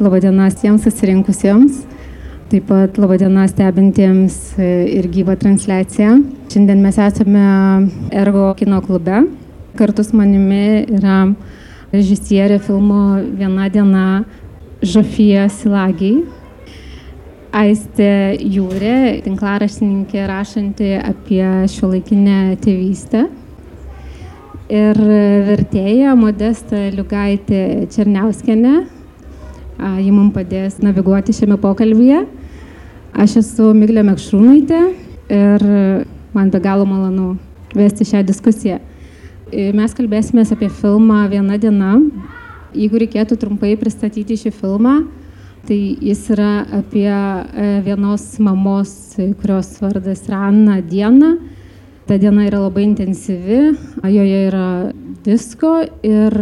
Labadiena tiems susirinkusiems, taip pat labadiena stebintiems ir gyvą transliaciją. Šiandien mes esame Ergo kino klube. Kartu su manimi yra režisierė filmo Viena diena Žofija Silagiai, Aistė Jūrė, tinklaraštininkė rašanti apie šiuolaikinę tėvystę, ir vertėja Modesta Liugaitė Černiauskienė. Ji mums padės naviguoti šiame pokalbyje. Aš esu Miglė Mekšrūnaitė ir man be galo malonu vesti šią diskusiją. Mes kalbėsime apie filmą Viena diena. Jeigu reikėtų trumpai pristatyti šį filmą, tai jis yra apie vienos mamos, kurios vardas yra Anna, dieną. Ta diena yra labai intensyvi, joje yra visko ir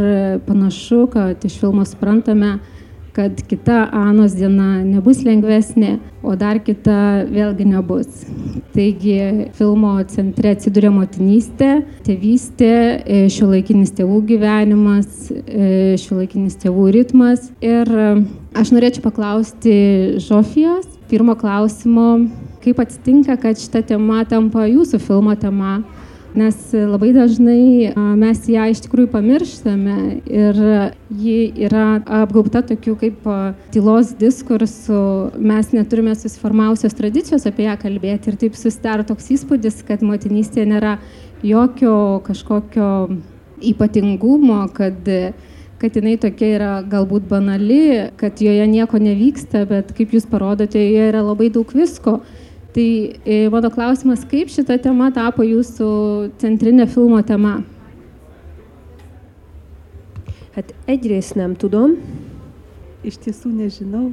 panašu, kad iš filmo suprantame, kad kita Anos diena nebus lengvesnė, o dar kita vėlgi nebus. Taigi filmo centre atsiduria motinystė, tėvystė, šiuolaikinis tėvų gyvenimas, šiuolaikinis tėvų ritmas. Ir aš norėčiau paklausti Žofijos pirmo klausimo, kaip atsitinka, kad šita tema tampa jūsų filmo tema, nes labai dažnai mes ją iš tikrųjų pamirštame ir ji yra apgaubta tokių kaip tylos diskursų, mes neturime susiformavusios tradicijos apie ją kalbėti ir taip susidaro toks įspūdis, kad motinystė nėra jokio kažkokio ypatingumo, kad jinai tokia yra galbūt banali, kad joje nieko nevyksta, bet kaip jūs parodote, joje yra labai daug visko. Tai mano klausimas, kaip šita tema tapo jūsų centrinė filmo tema? Egyrészt nem tudom. Iš tiesų nežinau.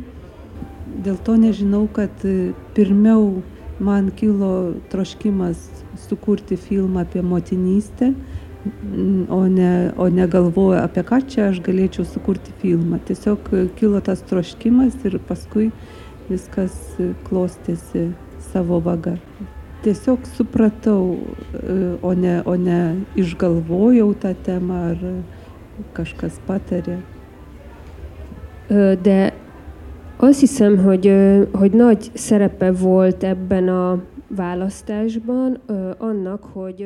Dėl to nežinau, kad pirmiau man kilo troškimas sukurti filmą apie motinystę, o ne galvoju, apie ką čia aš galėčiau sukurti filmą. Tiesiog kilo tas troškimas ir paskui viskas klostėsi savo vaga. Tiesiog supratau, o ne išgalvojau tą temą ar kažkas patarė. De azt hiszem, hogy nagy szerepe volt ebben a választásban annak, hogy...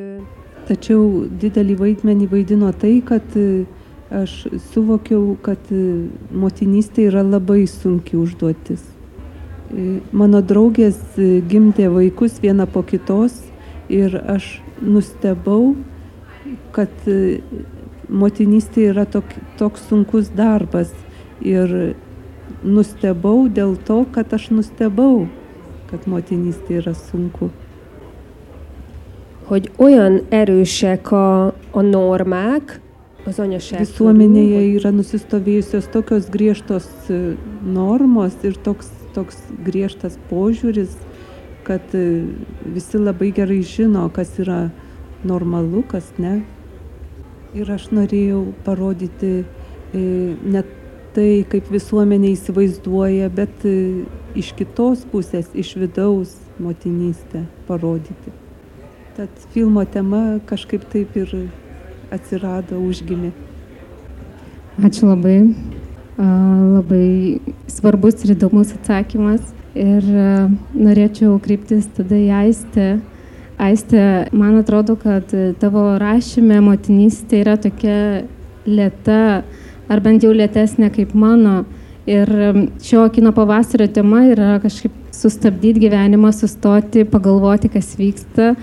Tačiau didelį vaidmenį vaidino tai, kad aš suvokiau, kad motinystė yra labai sunki užduotis. Mano draugės gimdė vaikus vieną po kitos ir aš nustebau, kad motinystė yra toks sunkus darbas. Ir nustebau dėl to, kad aš nustebau, kad motinystė yra sunku. Hogy olyan erősek a normák az anyaság körül. Visuomenėje yra nusistovėjusios tokios griežtos normos ir toks griežtas požiūris, kad visi labai gerai žino, kas yra normalu, kas ne. Ir aš norėjau parodyti ne tai, kaip visuomenė įsivaizduoja, bet iš kitos pusės, iš vidaus motinystę parodyti. Tad filmo tema kažkaip taip ir atsirado, užgimė. Ačiū labai. Labai svarbus ir įdomus atsakymas ir norėčiau kreiptis tada į Aistę. Aistė, man atrodo, kad tavo rašyme motinystė yra tokia lėta, ar bent jau lėtesnė kaip mano. Ir šio kino pavasario tema yra kažkaip sustabdyti gyvenimą, sustoti, pagalvoti, kas vyksta.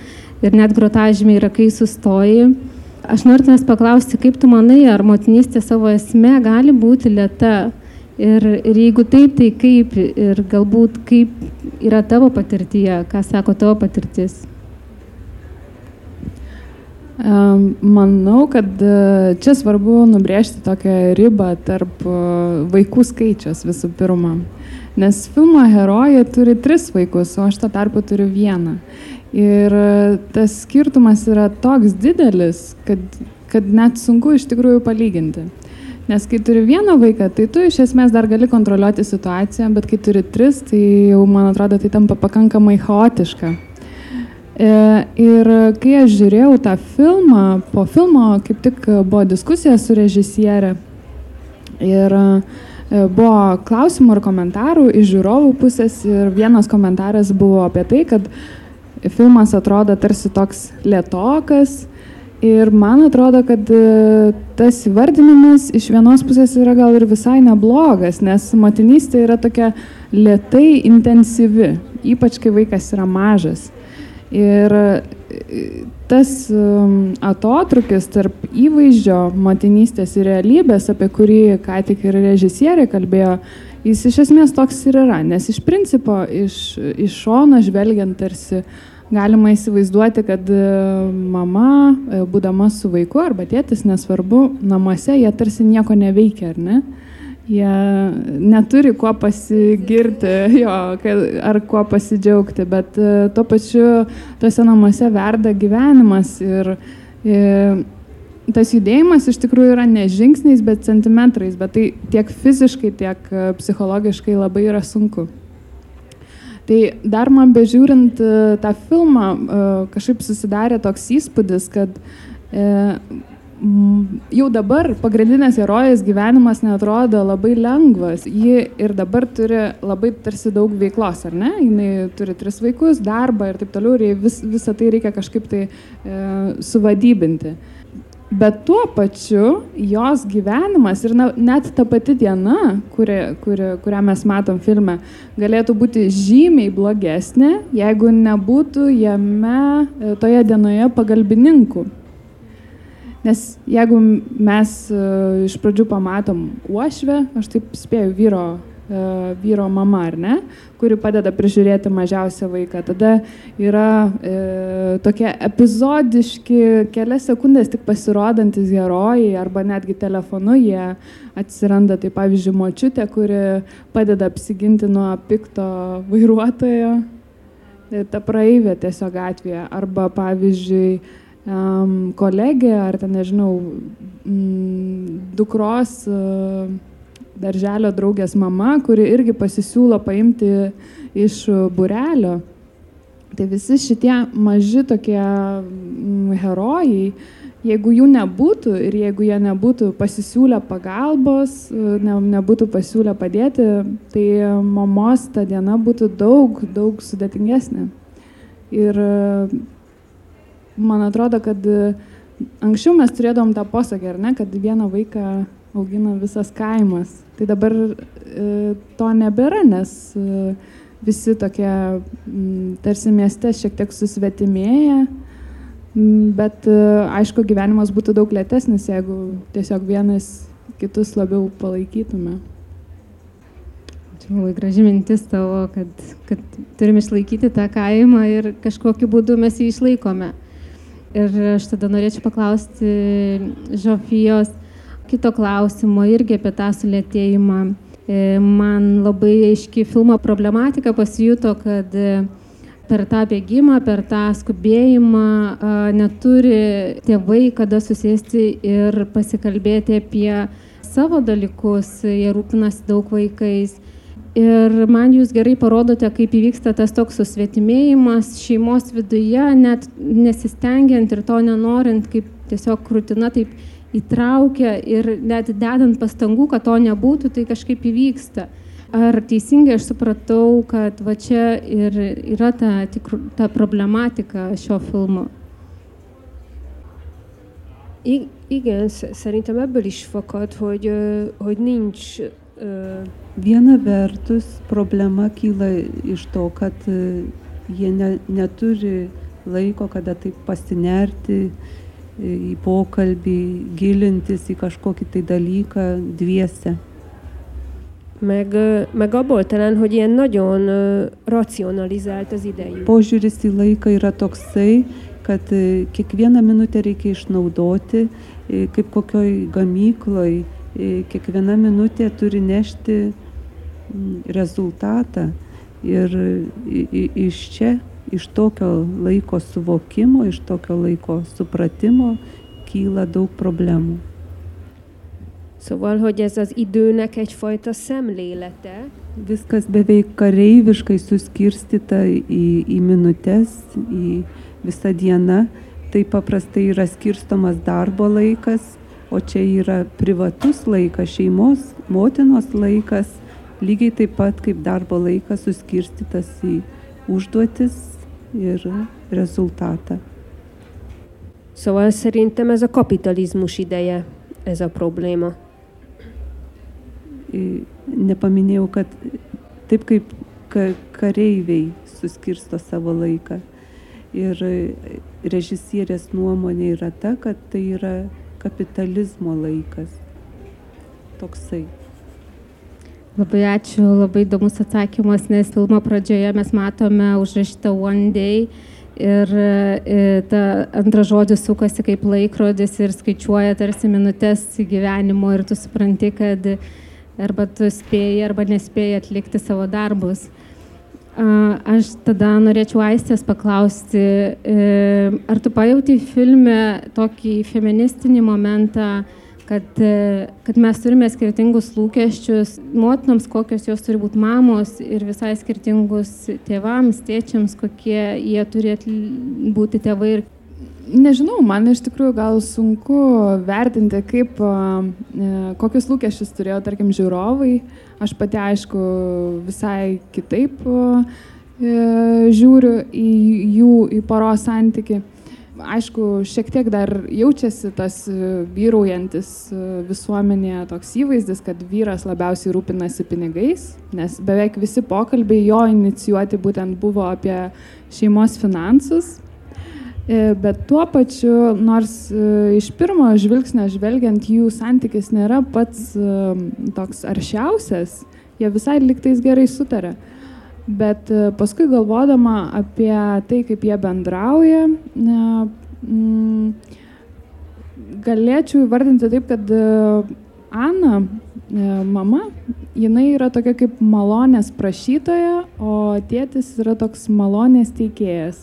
Ir net grotažymė yra, kai sustoji. Aš noriu tavęs paklausti, kaip tu manai, ar motinystė savo esme gali būti lėta? Ir jeigu taip, tai kaip? Ir galbūt kaip yra tavo patirtyje? Ką sako tavo patirtis? Manau, kad čia svarbu nubrėžti tokią ribą tarp vaikų skaičius visų pirma. Nes filmo herojė turi 3 vaikus, o aš tuo tarpu turiu 1. Ir tas skirtumas yra toks didelis, kad net sunku iš tikrųjų palyginti. Nes kai turi 1 vaiką, tai tu iš esmės dar gali kontroliuoti situaciją, bet kai turi 3, tai jau, man atrodo, tai tampa pakankamai chaotiška. Ir kai aš žiūrėjau tą filmą, po filmo kaip tik buvo diskusija su režisierė ir buvo klausimų ir komentarų iš žiūrovų pusės ir vienas komentaras buvo apie tai, kad filmas atrodo tarsi toks lėtokas ir man atrodo, kad tas įvardinimas iš vienos pusės yra gal ir visai neblogas, nes motinystė yra tokia lėtai intensyvi, ypač kai vaikas yra mažas. Ir tas atotrukis tarp įvaizdžio motinystės ir realybės, apie kurį ką tik ir režisierė kalbėjo, jis iš esmės toks ir yra, nes iš principo iš šono žvelgiant tarsi galima įsivaizduoti, kad mama, būdama su vaiku arba tėtis, nesvarbu, namuose jie tarsi nieko neveikia, ar ne? Jie neturi kuo pasigirti ar kuo pasidžiaugti, bet tuo pačiu tose namuose verda gyvenimas ir tas judėjimas iš tikrųjų yra ne žingsniais, bet centimetrais, bet tai tiek fiziškai, tiek psichologiškai labai yra sunku. Tai dar man bežiūrint tą filmą kažkaip susidarė toks įspūdis, kad jau dabar pagrindinės herojės gyvenimas neatrodo labai lengvas. Ji ir dabar turi labai tarsi daug veiklos, ar ne? Jinai turi 3 vaikus, darbą ir taip toliau, ir visą tai reikia kažkaip tai suvadybinti. Bet tuo pačiu jos gyvenimas ir net ta pati diena, kurią mes matom filme, galėtų būti žymiai blogesnė, jeigu nebūtų jame toje dienoje pagalbininkų. Nes jeigu mes iš pradžių pamatom uošvę, aš taip spėju vyro mama, ar ne, kuri padeda prižiūrėti mažiausią vaiką, tada yra tokie epizodiški kelias sekundės tik pasirodantis herojai arba netgi telefonu jie atsiranda, tai pavyzdžiui močiutė, kuri padeda apsiginti nuo pikto vairuotojo, ta praeivė tiesiog gatvėje, arba pavyzdžiui kolegė ar ten, nežinau, dukros darželio draugės mama, kuri irgi pasisiūlo paimti iš būrelio. Tai visi šitie maži tokie herojai, jeigu jų nebūtų ir jeigu jie nebūtų pasisiūlę pagalbos, nebūtų pasiūlę padėti, tai mamos ta diena būtų daug sudėtingesnė. Ir man atrodo, kad anksčiau mes turėdavom tą posakį, ar ne, kad vieną vaiką augina visas kaimas. Tai dabar to nebėra, nes visi tokie tarsi mieste šiek tiek susvetimėja, bet aišku, gyvenimas būtų daug lėtesnis, jeigu tiesiog vienas kitus labiau palaikytume. Čia labai graži mintis tavo, kad turim išlaikyti tą kaimą ir kažkokiu būdu mes jį išlaikome. Ir aš tada norėčiau paklausti Žofijos kito klausimo irgi apie tą sulėtėjimą. Man labai aiški filmo problematika pasijuto, kad per tą bėgimą, per tą skubėjimą neturi tėvai kada susėsti ir pasikalbėti apie savo dalykus, jie rūpinasi daug vaikais. Ir man jūs gerai parodote, kaip įvyksta tas toks susvetimėjimas šeimos viduje, net nesistengiant ir to nenorint, kaip tiesiog rutina taip įtraukia ir net dedant pastangų, kad to nebūtų, tai kažkaip įvyksta. Ar teisingai aš supratau, kad va čia ir yra ta problematika šio filmo? Igen, szerintem ebből is fakad, hogy nincs... Viena vertus problema kyla iš to, kad jie neturi laiko, kada taip pasinerti į pokalbį, gilintis į kažkokį tai dalyką dviese. Meg abból talán, hogy ilyen nagyon racionalizált az idejük. Požiūris į laiką yra toksai, kad kiekvieną minutę reikia išnaudoti, kaip kokioj gamykloj, kiekviena minutė turi nešti rezultatą. Ir iš čia, iš tokio laiko suvokimo, iš tokio laiko supratimo kyla daug problemų. Szóval, hogy ez az időnek egyfajta szemlélete. Viskas beveik kareiviškai suskirstyta į minutes, į visą dieną. Tai paprastai yra skirstomas darbo laikas, o čia yra privatus laikas, šeimos, motinos laikas, lygiai taip pat kaip darbo laikas suskirstytas į užduotis ir rezultatą. Szóval szerintem ez a kapitalizmus ideje, ez a probléma. Nepaminėjau, kad taip kaip kareiviai suskirsto savo laiką. Ir režisierės nuomonė yra ta, kad tai yra kapitalizmo laikas. Toksai. Labai ačiū, labai įdomus atsakymas, nes filmo pradžioje mes matome užrašytą One Day ir ta antras žodis sukasi kaip laikrodis ir skaičiuoja tarsi minutės gyvenimo ir tu supranti, kad arba tu spėjai arba nespėjai atlikti savo darbus. Aš tada norėčiau Aistės paklausti, ar tu pajauti filme tokį feministinį momentą, kad mes turime skirtingus lūkesčius motinoms, kokios jos turi būti mamos ir visai skirtingus tėvams, tėčiams, kokie jie turi būti tėvai. Nežinau, man iš tikrųjų gal sunku vertinti, kokius lūkesčius turėjo, tarkim, žiūrovai. Aš pati, aišku, visai kitaip žiūriu į poros santykį. Aišku, šiek tiek dar jaučiasi tas vyraujantis visuomenėje toks įvaizdis, kad vyras labiausiai rūpinasi pinigais, nes beveik visi pokalbiai jo inicijuoti būtent buvo apie šeimos finansus. Bet tuo pačiu, nors iš pirmo žvilgsnio žvelgiant, jų santykis nėra pats toks aršiausias, jie visai lygtais gerai sutarė. Bet paskui galvodama apie tai, kaip jie bendrauja, galėčiau įvardinti taip, kad Ana, mama, jinai yra tokia kaip malonės prašytoja, o tėtis yra toks malonės teikėjas.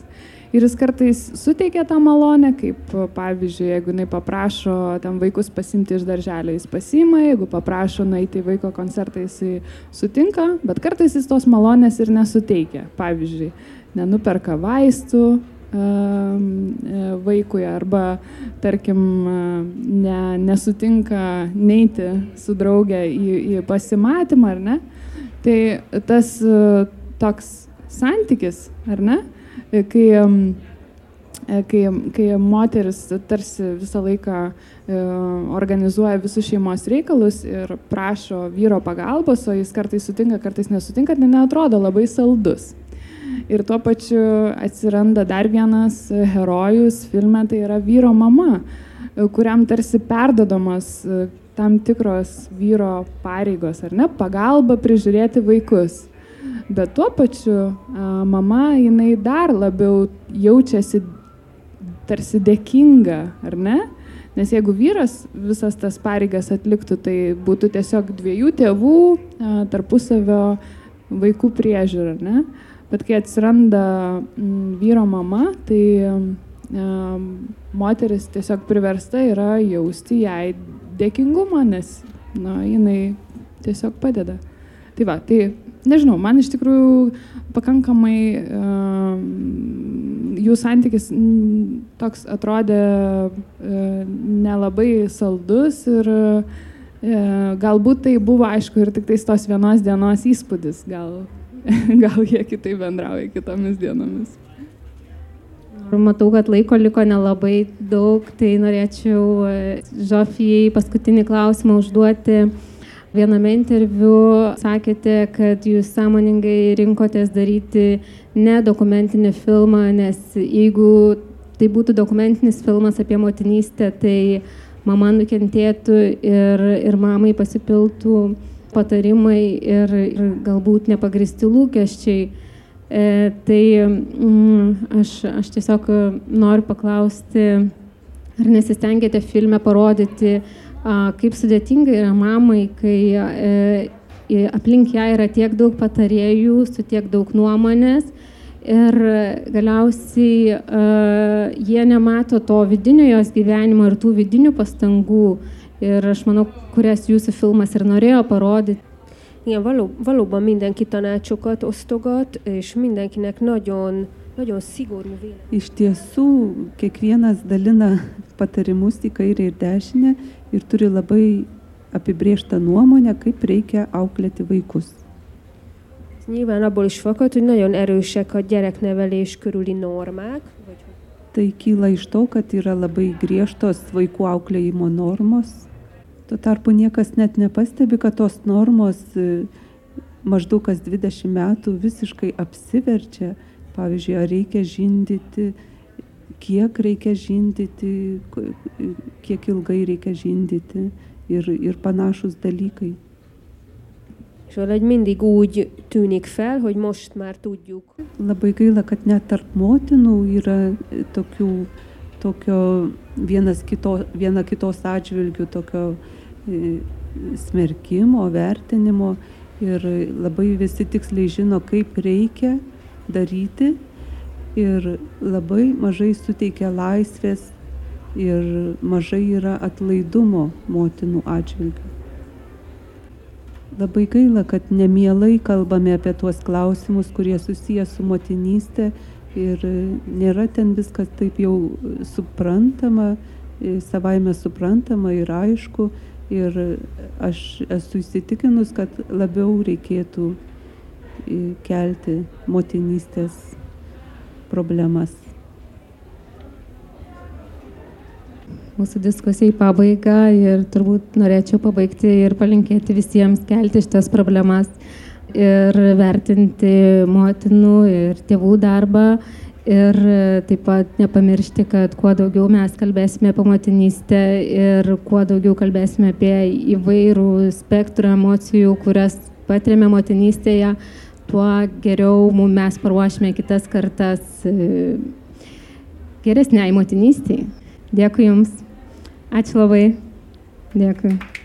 Ir jis kartais suteikia tą malonę, kaip pavyzdžiui, jeigu jinai paprašo ten vaikus pasimti iš darželio, jis pasiima, jeigu paprašo nueiti į vaiko koncertą, jis sutinka, bet kartais jis tos malonės ir nesuteikia. Pavyzdžiui, nenuperka vaistų vaikui arba, tarkim, nesutinka neiti su draugė į pasimatymą, ar ne? Tai tas toks santykis, ar ne? Kai moteris tarsi visą laiką organizuoja visus šeimos reikalus ir prašo vyro pagalbos, o jis kartais sutinka, kartais nesutinka, tai neatrodo labai saldus. Ir tuo pačiu atsiranda dar vienas herojus filme, tai yra vyro mama, kuriam tarsi perdodamas tam tikros vyro pareigos, ar ne, pagalba prižiūrėti vaikus. Bet tuo pačiu mama, jinai dar labiau jaučiasi tarsi dėkinga, ar ne? Nes jeigu vyras visas tas pareigas atliktų, tai būtų tiesiog dviejų tėvų tarpusavio vaikų priežiūra, ar ne? Bet kai atsiranda vyro mama, tai moteris tiesiog priversta yra jausti jai dėkingumą, nes jinai tiesiog padeda. Tai va, tai nežinau, man iš tikrųjų pakankamai jų santykis toks atrodė nelabai saldus ir galbūt tai buvo, aišku, ir tik tos vienos dienos įspūdis, gal jie kitaip bendrauja kitomis dienomis. Matau, kad laiko liko nelabai daug, tai norėčiau Žofijai paskutinį klausimą užduoti. Viename interviu sakėte, kad jūs sąmoningai rinkotės daryti ne dokumentinį filmą, nes jeigu tai būtų dokumentinis filmas apie motinystę, tai mama nukentėtų ir mamai pasipiltų patarimai ir galbūt nepagristi lūkesčiai. Tai aš tiesiog noriu paklausti, ar nesistengėte filme parodyti, kaip sudėtinga yra mamai, kai aplink ją yra tiek daug patarėjų, su tiek daug nuomonės ir galiausiai jie nemato to vidinio jos gyvenimo ir tų vidinių pastangų. Ir aš manau, kurias jūsų filmas ir norėjo parodyti. Igen, valóban mindenki tanácsokat osztogat, és mindenkinek nagyon szigorú vélemény. Iš tiesų, kiekvienas dalina patarimus į kairę ir dešinę ir turi labai apibrėžtą nuomonę, kaip reikia auklėti vaikus. Nyilván abból is fakad, hogy nagyon erősek a gyereknevelés körüli normák. Tai kyla iš to, kad yra labai griežtos vaikų auklėjimo normos. Tuo tarpu niekas net nepastebi, kad tos normos maždaug kas 20 metų visiškai apsiverčia. Pavyzdžiui, ar reikia žindyti, kiek reikia žindyti, kiek ilgai reikia žindyti ir panašus dalykai. És valahogy mindig úgy tűnik fel, hogy most már tudjuk. Labai gaila, kad net tarp motinų yra tokio viena kitos atžvilgių, tokio smerkimo, vertinimo ir labai visi tiksliai žino, kaip reikia daryti ir labai mažai suteikia laisvės ir mažai yra atlaidumo motinų atžvilgių. Labai gaila, kad nemielai kalbame apie tuos klausimus, kurie susiję su motinystė ir nėra ten viskas taip jau suprantama, savaime suprantama ir aišku. Ir aš esu įsitikinus, kad labiau reikėtų kelti motinystės problemas. Mūsų diskusija į pabaigą ir turbūt norėčiau pabaigti ir palinkėti visiems kelti šitas problemas ir vertinti motinų ir tėvų darbą ir taip pat nepamiršti, kad kuo daugiau mes kalbėsime apie motinystę ir kuo daugiau kalbėsime apie įvairų spektrą emocijų, kurias patiriame motinystėje, tuo geriau mes paruošime kitas kartas geresniai motinystei. Dėkui Jums. Ačiū labai. Dėkui.